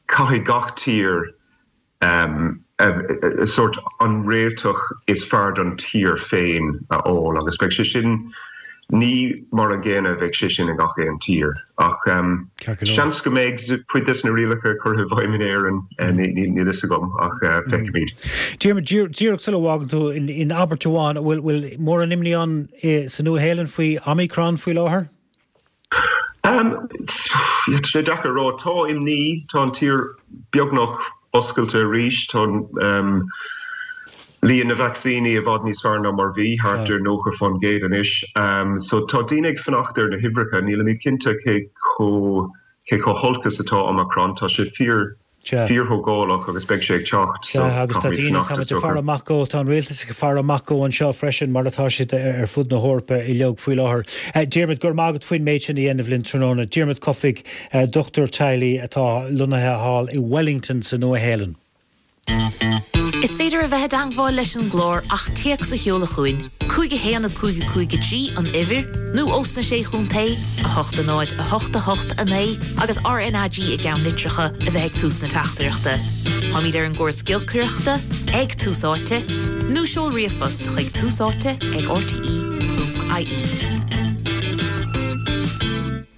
caithfidh gach tír sórt an réiteach is fearr don tír féin a fháil agus beidh sé sin, ní mar an gcéanna a bheidh sé sin i ngach aon tír ach seans go mbeidh cuid des na rialacha curtha i bhfeidhm in Éirinn, níl fhios agam ach feicfimid. Diarmuid, díreach sula bhfágann tú, in abairt amháin, an bhfuil mórán imní ann sa Nua-Shéalainn faoi Omicron faoi láthair? Tá sé deacair a rá. Tá imní, tá an tír beagnach oscailte arís, tá líon na vacsaíní i bhfad níos fearr ná mar bhí, thart ar 90% anois. So tá daoine ag fanacht ar na huimhreacha. Nílimid cinnte cé chomh cé chomh holc is atá Omicron. Tá sé fíor fíorthógálach agus beidh sé ag teacht so Sea, agus tá daoine, tá muid ag faire amach dó, tá an rialtas ag faire amach dó anseo freisin, mar atá siad ar fud na hEorpa uilig faoi láthair. Diarmuid, go raibh maith agat faoin méid sin a dhéanamh linn tráthnóna. Diarmuid Cofaigh, dochtúir teaghlaigh atá lonnaithe thall i Wellington sa Nua-Shéalainn. Is féidir a bheith i dteangmháil leis an gclár ach téacs a sheoladh chugainn, 5 1 5 5 3 an uimhir, nó ós na Sé Chontae, 8 0 8 8 9 agus RnaG i gceannlitreacha a bheith ag tús na teachtaireachta. Táimid ar an gcóras giolcaireachta, ag Tús Áite, nó seol ríomhphost chuig túsáite ag rte.ie.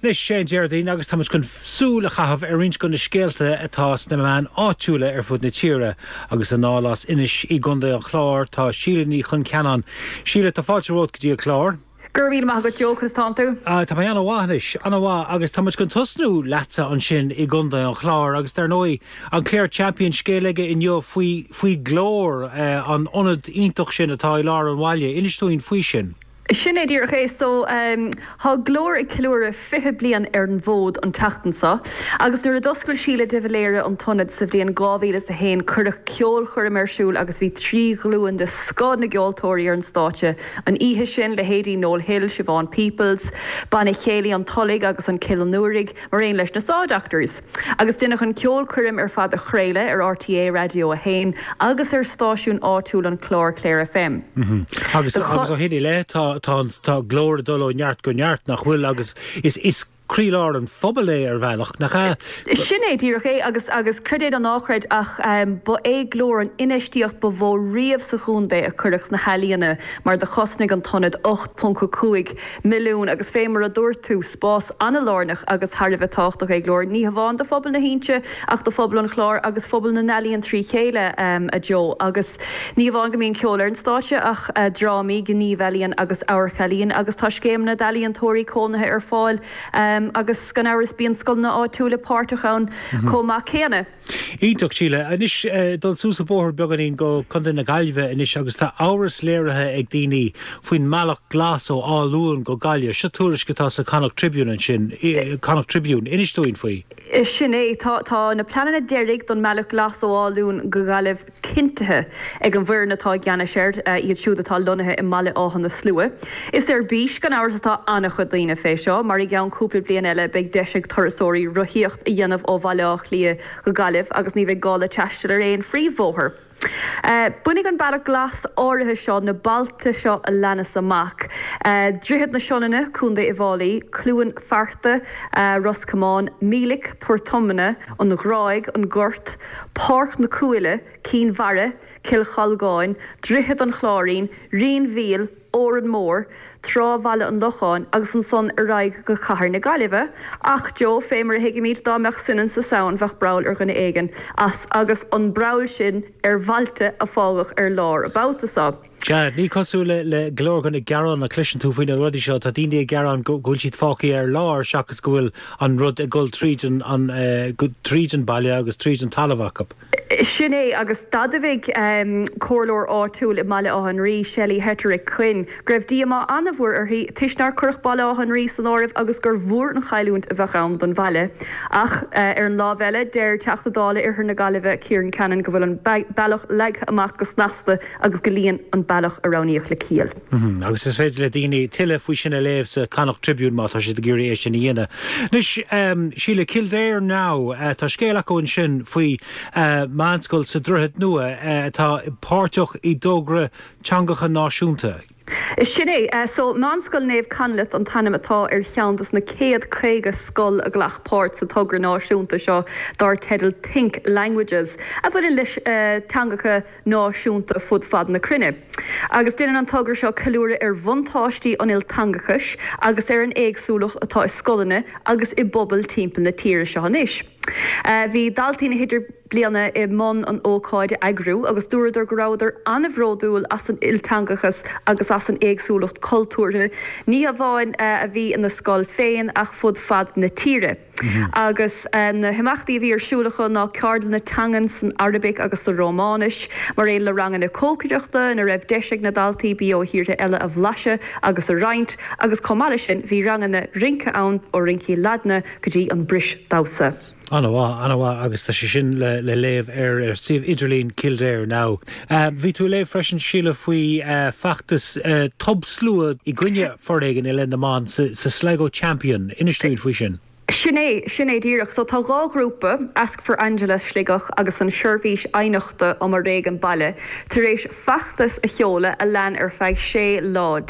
Anois, sé an Déardaoin agus táimid chun súil a chaitheamh ar roinnt de na scéalta atá sna meáin áitiúla ar fud na tíre. Agus anall as Inis i gContae an Chláir tá Síle Ní Choncheanainn. Síle, tá fáilte romhat go dtí an clár. Go raibh míle maith agat Joe, conas tánn tú? Tá mé ana-mhaith anois, ana-mhaith agus tá muid chun tosnú leatsa ansin i gContae an Chláir agus dar ndóigh an Clare Champion scéal aige inniu faoi faoi Glór, an ionad iontach sin atá i lár an bhaile. Inis dúinn faoi sin. Sin é díreach é. So, tá Glór ag ceiliúradh 20 bliain ar an bhfód an tseachtain seo agus nuair a d'oscail Síle de Valera an t-ionad sa bhliain 2001 cuireadh ceolchoirm ar siúl agus bhí 3 ghlúin de scoth na gceoltóirí ar an stáitse an oíche sin, leithéidí Noel Hill, Siobhán Peoples, Banna Chéilí an Tulaigh agus an Cill an Iúraigh, mar aon leis na Saw Doctors. Agus deineadh an ceolchoirm ar fad a chraoladh ar RTÉ Raidió 1 agus ar stáisiún áitiúil an Chláir, Clare FM. Agus agus ó shin i leith tá tá tá Glór ag dul ó neart go neart, nach bhfuil? Agus is is. croílár an phobail é ar bhealach, nach ea? Sin é díreach é agus, agus creid é nó ná creid ach ba é Glór an infheistíocht ba mhó riamh sa chontae a cuireadh sna healaíona mar do chosnaigh an t-ionad 8.5 milliún agus fé mar a dúirt tú, spás an-lárnach agus thar a bheith tábhachtach é Glór, ní hamháin do phobal na hInse ach do phobal an Chláir agus phobal na n-ealaíon trí chéile, a Joe. Agus ní hamháin go mbíonn ceol ar an stáitse ach drámaí, gníomhealaíon agus amharc-ealaíon agus tá scéimeanna d'ealaíontóirí cónaithe ar fáil agus gan amhras bíonn scoileanna áitiúla páirteach ann chomh maith céanna. Iontach, Síle. Anois, dul suas an bóthar beagáinín go Contae na Gaillimhe anois agus tá amhras léirithe ag daoine faoin mbealach glas ó Áth Luain go Gaillimh. Seo tuairisc atá sa Connacht Tribune ansin, Connacht Tribune. Inis dúinn faoi. Sin é. Tá, tá na pleananna deiridh don mbealach glas ó Áth Luain go Gaillimh cinntithe ag an bhfoireann atá i gceannais air, iad siúd atá lonnaithe i mBaile Átha na Slua. Is ar bís, gan amhras, atá an-chuid daoine fé seo, mar i gceann cúpla bliain eile beidh deis ag turasóirí rothaíocht a dhéanamh ó Bhaile Átha Cliath go Gaillimh agus ní bheidh gá le taisteal ar aon phríomhbhóthar. Bainfidh an Bealach Glas áirithe seo na bailte seo a leanas amach, Droichead na Sionainne, Co. Uíbh Fhailí, Cluain Fearta, Ros Comáin, Mílic, Port Omna, An Ghráig, An Gort, Páirc na Cúile, Cinn Mhara, Cill Cholgáin, Droichead an Chláirín, Rinn Mhíl, Órán Mór, Trá Bhaile an Locháin agus ansan ar aghaidh go Cathair na Gaillimhe. Ach, Joe, fé mar a thuigimid, dá mbeadh soineann sa samhain bheadh breall ar dhuine éigin as agus an breall sin ar bhailte a fágadh ar lár an babhta so. Sea, ní cosúil le go leor de na gearáin a chloiseann tú faoi na rudaí seo, tá daoine ag gearán go bhfuil siad fágtha ar lár seachas go bhfuil an rud ag dul tríd an tríd an baile agus tríd an talamh acu. Sin é, agus d'admhaigh comhairleoir áitiúil i mBaile Átha an Rí, Shelley Hetterich Quinn, go raibh díomá an-mhór uirthi toisc nár cuireadh Baile Átha an Rí san áireamh agus gur mhór an chailliúint a bheadh ann don bhaile. Ach ar an lámh eile, deir Teachta Dála Oirthear na Gaillimhe, Ciaran Cannon, go bhfuil an bealach leagtha amach go snasta agus go luíonn an bealach a roghnaíodh le ciall. Agus is féidir le daoine tuilleadh faoi sin a léamh sa Connacht Tribune má tá siad ag iarraidh é sin a dhéanamh. Anois, Síle, Kildare Now, tá scéal acu ansin faoi mheánscoil sa Droichead Nua atá páirteach i dtogra teangacha náisiúnta. Sin é. So, Meánscoil Naomh Conleth an t-ainm atá ar cheann dos na céad 50 scoil a ghlac páirt sa togra náisiúnta seo dar teideal Think Languages, a bhaineann leis teangacha náisiúnta fud fad na cruinne. Agus déanann an togra seo ceiliúradh ar bhuntáistí an ilteangachais agus ar an éagsúlacht atá i scoileanna agus i bpobail timpeall na tíre seo anois. Bhí daltaí na hIdirbliana i mbun an ócáid a eagrú agus dúradar go rabhadar an-bhródúil as an ilteangachas agus as an éagsúlacht cultúrtha, ní hamháin a bhí ina scoil féin ach fud fad na tíre. Agus na himeachtaí a bhí ar siúl acu ná ceardlanna teangan san Araibic agus sa Rómáinis, mar aon le ranganna cócaireachta ina raibh deis ag na daltaí bia ó thíortha eile a bhlaiseadh agus a roinnt, agus chomh maith leis sin bhí ranganna rince ann, ó rincí Ladna go dtí an brisdamhsa. An-mhaith, an-mhaith agus tá sé sin le léamh ar suíomh idirlín Kildare Now. Bhí tú ag léamh freisin, Síle, faoi feachtas tobshlua i gcoinne foréigin i leith na mban sa Sligo Champion. Inis dúinn faoi sin. Sin é, sin é díreach. So tá dhá ghrúpa, Ask for Angela Sligeach agus an Seirbhís Aighneachta um Fhoréigean Baile, tar éis feachtas a sheoladh a lean ar feadh 16 lá.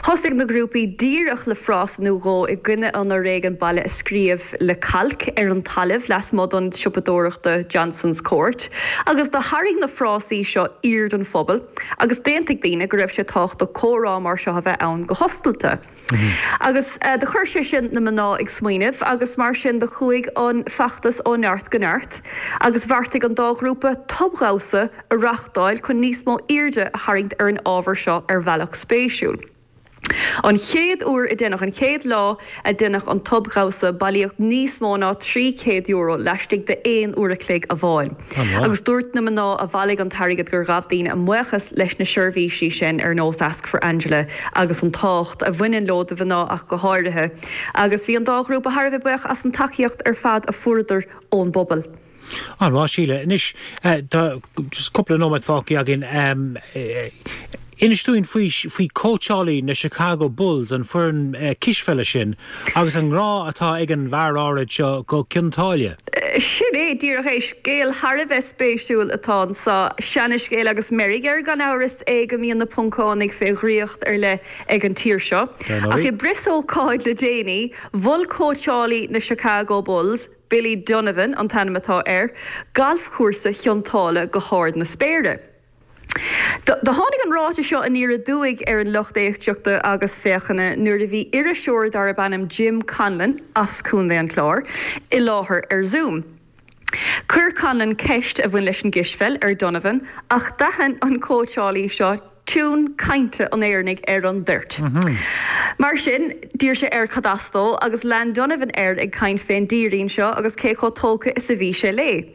Thosaigh na grúpaí díreach le frása nó dhó i gcoinne an fhoréigin baile a scríobh le cailc ar an talamh lasmuigh d'ionad siopadóireachta Johnson's Court agus do tharraing na frásaí seo aird an phobail agus d'aontaigh daoine go raibh sé tábhachtach comhrá mar seo a bheith ann go hoscailte. Agus do chuir sé sin na mná ag smaoineamh agus mar sin do chuaigh an feachtas ó neart go neart agus bheartaigh an dá ghrúpa tobdhamhsa a reáchtáil chun níos mó airde a tharraingt ar an ábhar seo ar bhealach spéisiúil. An chéad uair a deineadh, an chéad lá a deineadh an tobdhamhsa, bailíodh níos mó ná €300 laistigh de aon uair a chloig amháin. Agus dúirt na mná a bhailigh an t-airgead gur ghabh daoine a mbuíochas leis na seirbhísí sin ar nós Ask for Angela agus an tábhacht a bhaineann leo do mhná ach go háirithe. Agus bhí an dá ghrúpa thar a bheith buíoch as an tacaíocht ar fad a fuaireadar ón bpobal. An-mhaith, Síle. Anois, tá just cúpla nóiméad fágtha againn. Inis dúinn faoi, faoi cóitseálaí na Chicago Bulls, an foireann cispheile sin, agus an ngrá atá ag an bhfear áirid seo go Cionn tSáile. Sin é díreach é. Scéal thar a bheith spéisiúil atá anso. Seana-scéal agus meirg air gan amhras é go mbíonn na Poncánaigh fé dhraíocht ar leith ag an tír seo. Ach i bpreasócáid le déanaí, mhol cóitseálaí na Chicago Bulls, Billy Donovan an t-ainm atá air, galfchúrsa Chionn tSáile go hard na spéire. Do tháinig an ráiteas seo aniar aduaidh ar an lucht éisteachta agus féachana nuair a bhí iriseoir darb ainm Jim Conlon, as Contae an Chláir, i láthair ar Zoom. Chuir Conlon ceist a bhain leis an gcispheil ar Donovan ach d'aithin an cóitseálaí seo tiún cainte an Éireannaigh ar an dtoirt. Mar sin, d'iarr sé air cad as dó agus lean Donovan air ag caint fén dtírín seo agus cé chomh tógtha is a bhí sé léi.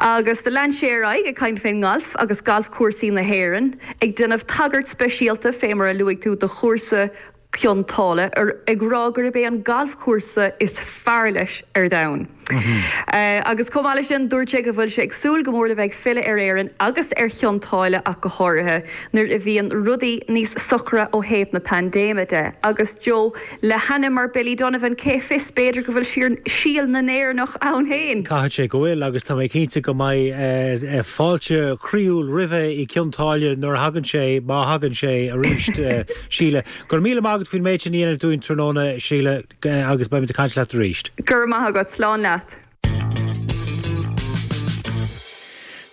Agus do lean sé ar aghaidh ag caint fén ngalf agus galfchúrsaí na hÉireann, ag déanamh tagairt speisialta, fé mar a luaigh tú, do chúrsa Chionn tSáile, ag rá gurb é an galfchúrsa is fearr leis ar domhan. Agus chomh maith leis sin, dúirt sé go bhfuil sé ag súil go mór le bheith ag filleadh ar Éirinn agus ar Chionn tSáile ach go háirithe, nuair a bhíonn rudaí níos socra ó thaobh na paindéime de. Agus Joe, Le hainm mar Billy Donovan, cé fios, b'fhéidir go bhfuil síol na nÉireannach ann féin! Caithfidh sé go bhfuil, agus tá mé cinnte go mbeidh fáilte chroíúil roimhe i gCionn tSáile nuair a thagann sé, má thagann sé arís, Síle. Go raibh míle maith agat faoin méid sin a dhéanamh dúinn tráthnóna, Síle, agus beimid ag caint leat arís. Go raibh maith agat. Slán leat.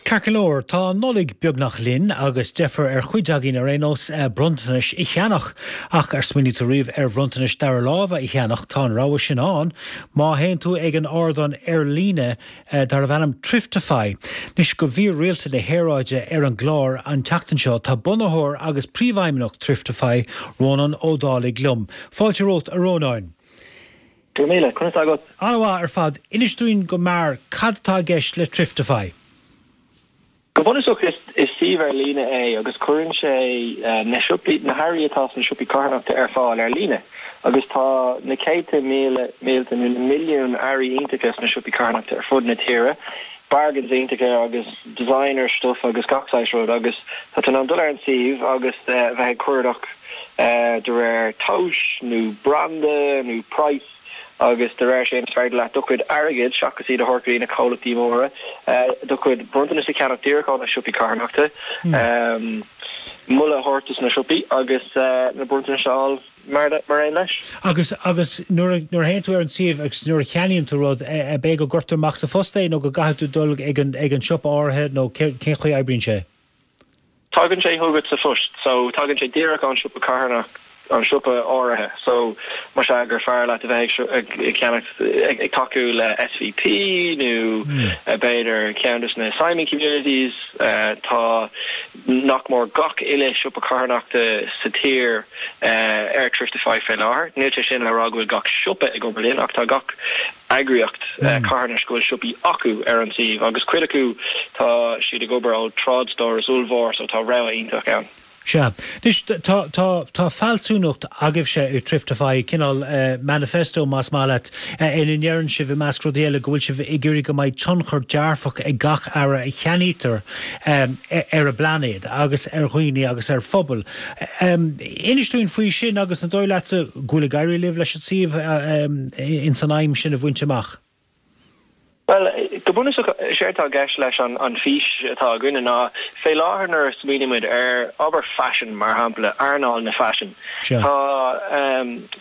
Ceart go leor, tá an Nollaig beagnach linn agus deifir ar chuid againn ar aon nós bronntanais a cheannach. Ach ar smaoinigh tú riamh ar bhronntanais dara láimhe a cheannach? Tá an rogha sin ann má théann tú ag an ardán ar líne darbh ainm Thriftify. Anois do mhír rialta na haeráide ar an gclár an tseachtain seo tá bunaitheoir agus príomhfheidhmeannach Thriftify, Rónán Ó Dálaigh liom. Fáilte romhat a Rónáin. Go raibh míle. Conas tá agat? An-mhaith ar fad. Inis dúinn go mear cad atá i gceist le Thriftify. Go bunúsach is suíomh ar líne é agus cuireann sé na siopaí, na hearraí atá sna siopaí carthanachta ar fáil ar líne. Agus tá na céadta míle, mílte nó na milliúin earraí iontacha sna siopaí carthanachta ar fud na tíre, bargains iontacha agus designer stuff agus gach saghas rud agus tá tú in ann dul ar an suíomh agus bheith ag cuardach de réir tomhais nó branda nó praghas agus de réir sin is féidir leat do chuid airgid, seachas iad a thabhairt go dtí na comhlachtaí móra, do chuid bronntanas a cheannach díreach ó na siopaí carthanachta, moladh a thabhairt dos na siopaí agus na bronntanais a fháil mar aon leis. Agus agus nuair a nuair a théann tú ar an suíomh agus nuair a cheannaíonn tú rud, ab é go gcuirtear amach sa phost é nó go gcaithfidh tú dul ag an ag an siopa áirithe nó cén chaoi a oibríonn sé? Tagann sé chugat sa phost, so tagann sé díreach ón siopa carthanach, an siopa áirithe. So más ea gur fearr leat a bheith ag ceannacht, ag tacú le SVP nó b'fhéidir ceann de na Simon Communities, tá nach mór gach uile siopa carthanachta sa tír ar Thriftify fé láthair. Níl sé sin le rá go bhfuil gach siopa ag obair linn ach tá gach eagraíocht carthanais go bhfuil siopaí acu ar an suíomh agus cuid acu tá siad ag obair ó trádstóras ollmhór so tá rogha iontach ann. Sea. Anois, tá, tá, tá fealsúnacht agaibhse i Thriftify, cineál manifesto más maith leat, ina ndeireann sibh, i measc rudaí eile, go bhfuil sibh ag iarraidh go mbeidh tionchar dearfach ag gach earra a cheannaítear ar an bplainéad agus ar dhaoine agus ar phobail. Inis dúinn faoi sin agus an dóigh leatsa go bhfuil ag éirí libh leis an suíomh ins an aidhm sin a bhaint amach? Bhuel, go bunúsach, is éard atá i gceist leis an bhfís atá againne ná, fé láthair nuair a smaoinímid ar, abair faisean mar shampla, earnáil na faisin, tá,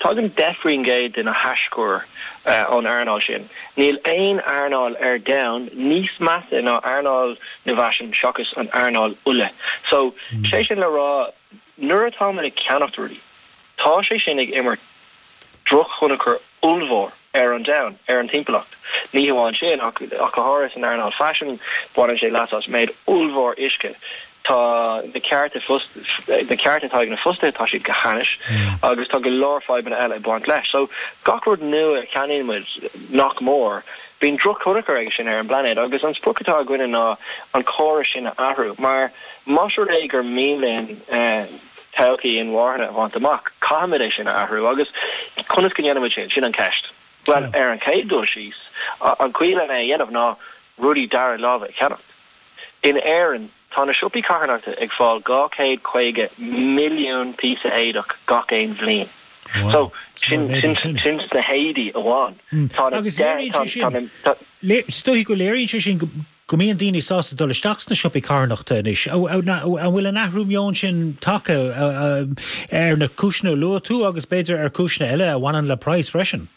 tagann 10% de na haischuir ón earnáil sin. Níl aon earnáil ar domhan níos measa ná earnáil na bhfaisean seachas an earnáil ola. So, sé sin le rá, Nuair atáimid ag ceannacht rudaí, tá sé sin ag imirt drochthionchar ollmhór ar an domhan, ar an timpeallacht. Ní hamháin sin, ach go háirithe san earnáil faisin, baineann sé leas as méid ollmhór uisce. Tá na cearta na cearta atá ag na fostaithe, tá siad go hainnis, agus tá go leor fadhbanna eile ag baint leis. So, gach rud nua a cheannaíonn muid, nach mór, bíonn drochthionchar aige sin ar an bplainéad agus an sprioc atá againne ná an córas sin a athrú mar, Más rud é gur mian linn todhchaí inmharthana a bhaint amach, caithfimid é sin a athrú. Agus conas go ndéanfaimid sin? Sin an cheist. Bhuel, ar an chéad dul síos, an chaoi lena é a dhéanamh ná rudaí dara láimhe a cheannacht. In Éirinn, tá na siopaí carthanachta ag fáil 250 milliún píosa éadach gach aon bhliain. So sin sin sin sna héadaí amháin. Tá na Agus léiríonn sé sin, is dóichí go léiríonn sé sin go mbíonn daoine sásta dul isteach sna siopaí carthanachta anois. An bhfuil an athrú meoin sin tagtha ar na cúiseanna a luaigh tú agus b'fhéidir ar chúiseanna eile a bhaineann le praghas freisin?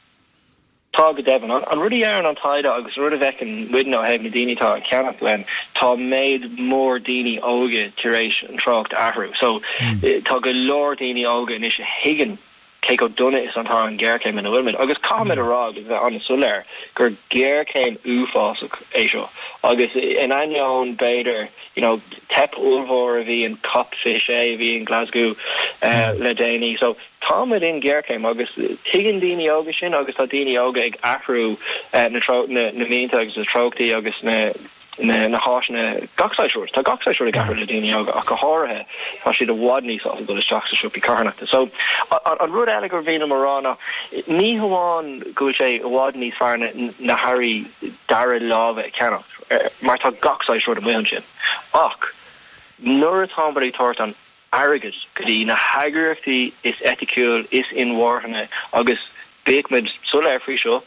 Tá, go deimhin. An rud a deireann an taighde agus an rud a bhfeiceann muidne ó thaobh na daoine atá ag ceannach uainn, tá méid mór daoine óga tar éis an treocht a athrú. So, tá go leor daoine óga anois a thuigeann cé chomh dona is atá an ghéarchéim ina bhfuilimid. Agus caithfimid a rá agus bheith an-soiléir gur géarchéim uafásach é seo. Agus in ainneoin, b'fhéidir, you know, teip ollmhór a bhí in Cop 26 a bhí in Glasgow le déanaí. So, Táimid in géarchéim agus tuigeann daoine óga sin agus tá daoine óga ag athrú na na mianta agus na treochtaí agus na na háiseanna, gach saghas rud. Tá gach saghas rud ag athrú le daoine óga ach go háirithe tá siad i bhfad níos sásta dul isteach sa siopaí carthanachta. So an rud eile gur mhian liom a rá ná ní hamháin go bhfuil sé i bhfad níos fearr na na hearraí dara láimhe a cheannach mar tá gach saghas rud amuigh ansin ach nuair atáimid ag tabhairt an airgead go dtí na heagraíochtaí is eiticiúil, is inmharthana agus bíodh muid soiléir faoi seo,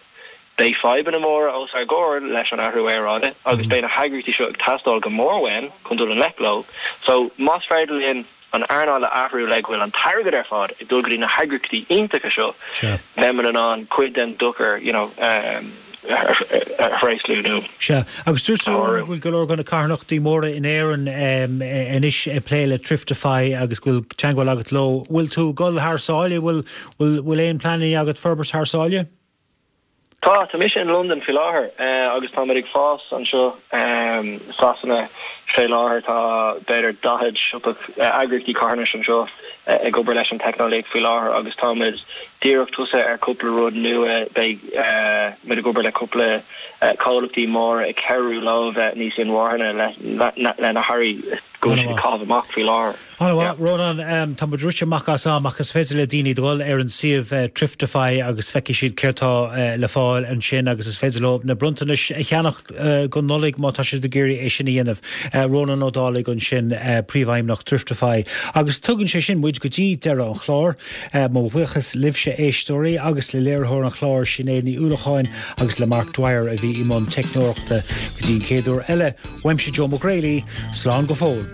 beidh fadhbanna móra os ár gcomhair leis an athrú aeráide agus beidh na heagraíochtaí seo ag teastáil go mór uainn chun dul i ngleic leo. So más féidir linn an earnáil a athrú le go bhfuil an t-airgead ar fad ag dul go dtí na heagraíochtaí iontacha seo, beimid in ann cuid den dochar you know, a thréaslú nó. Sea, agus dúirt tú go bhfuil go leor de na carthanachtaí móra in Éirinn anois ag plé le Thriftify agus go bhfuil teagmháil agat leo. Bhfuil tú ag dul thar sáile? Bhfuil bhfuil aon pleananna agat forbairt thar sáile? Tá, tá mise in Londain faoi láthair agus táimid ag fás anseo i Sasana fé láthair. Tá b'fhéidir 40 siopa eagraíochtaí carthanais anseo ag obair leis an teicneolaíocht faoi láthair agus táimid díreach tosaithe ar cúpla rud nua. Beidh muid ag obair le cúpla comhlachtaí móra ag cabhrú leo bheith níos inmharthana le na hearraí go bhfuil siad ag caitheamh amach faoi láthair. An-mhaith, Rónán. Tá muid rite amach as am ach is féidir le daoine dul ar an suíomh Thriftify agus feicfidh siad céard tá le fáil ansin agus is féidir leo na bronntanais a cheannach don Nollaig má tá siad ag iarraidh é sin a dhéanamh. Rónán Ó Dálaigh ansin, Príomhfheidhmeannach Thriftify. Agus tugann sé sin muid go dtí deireadh an chláir. Mo bhuíochas libhse éisteoirí agus le léiritheoir an chláir Sinéad Ní Uallacháin agus le Mark Dwyer a bhí i mbun teicneoireachta. Go dtí an chéad uair eile, uaimse Joe Mac Greally, slán go fóill.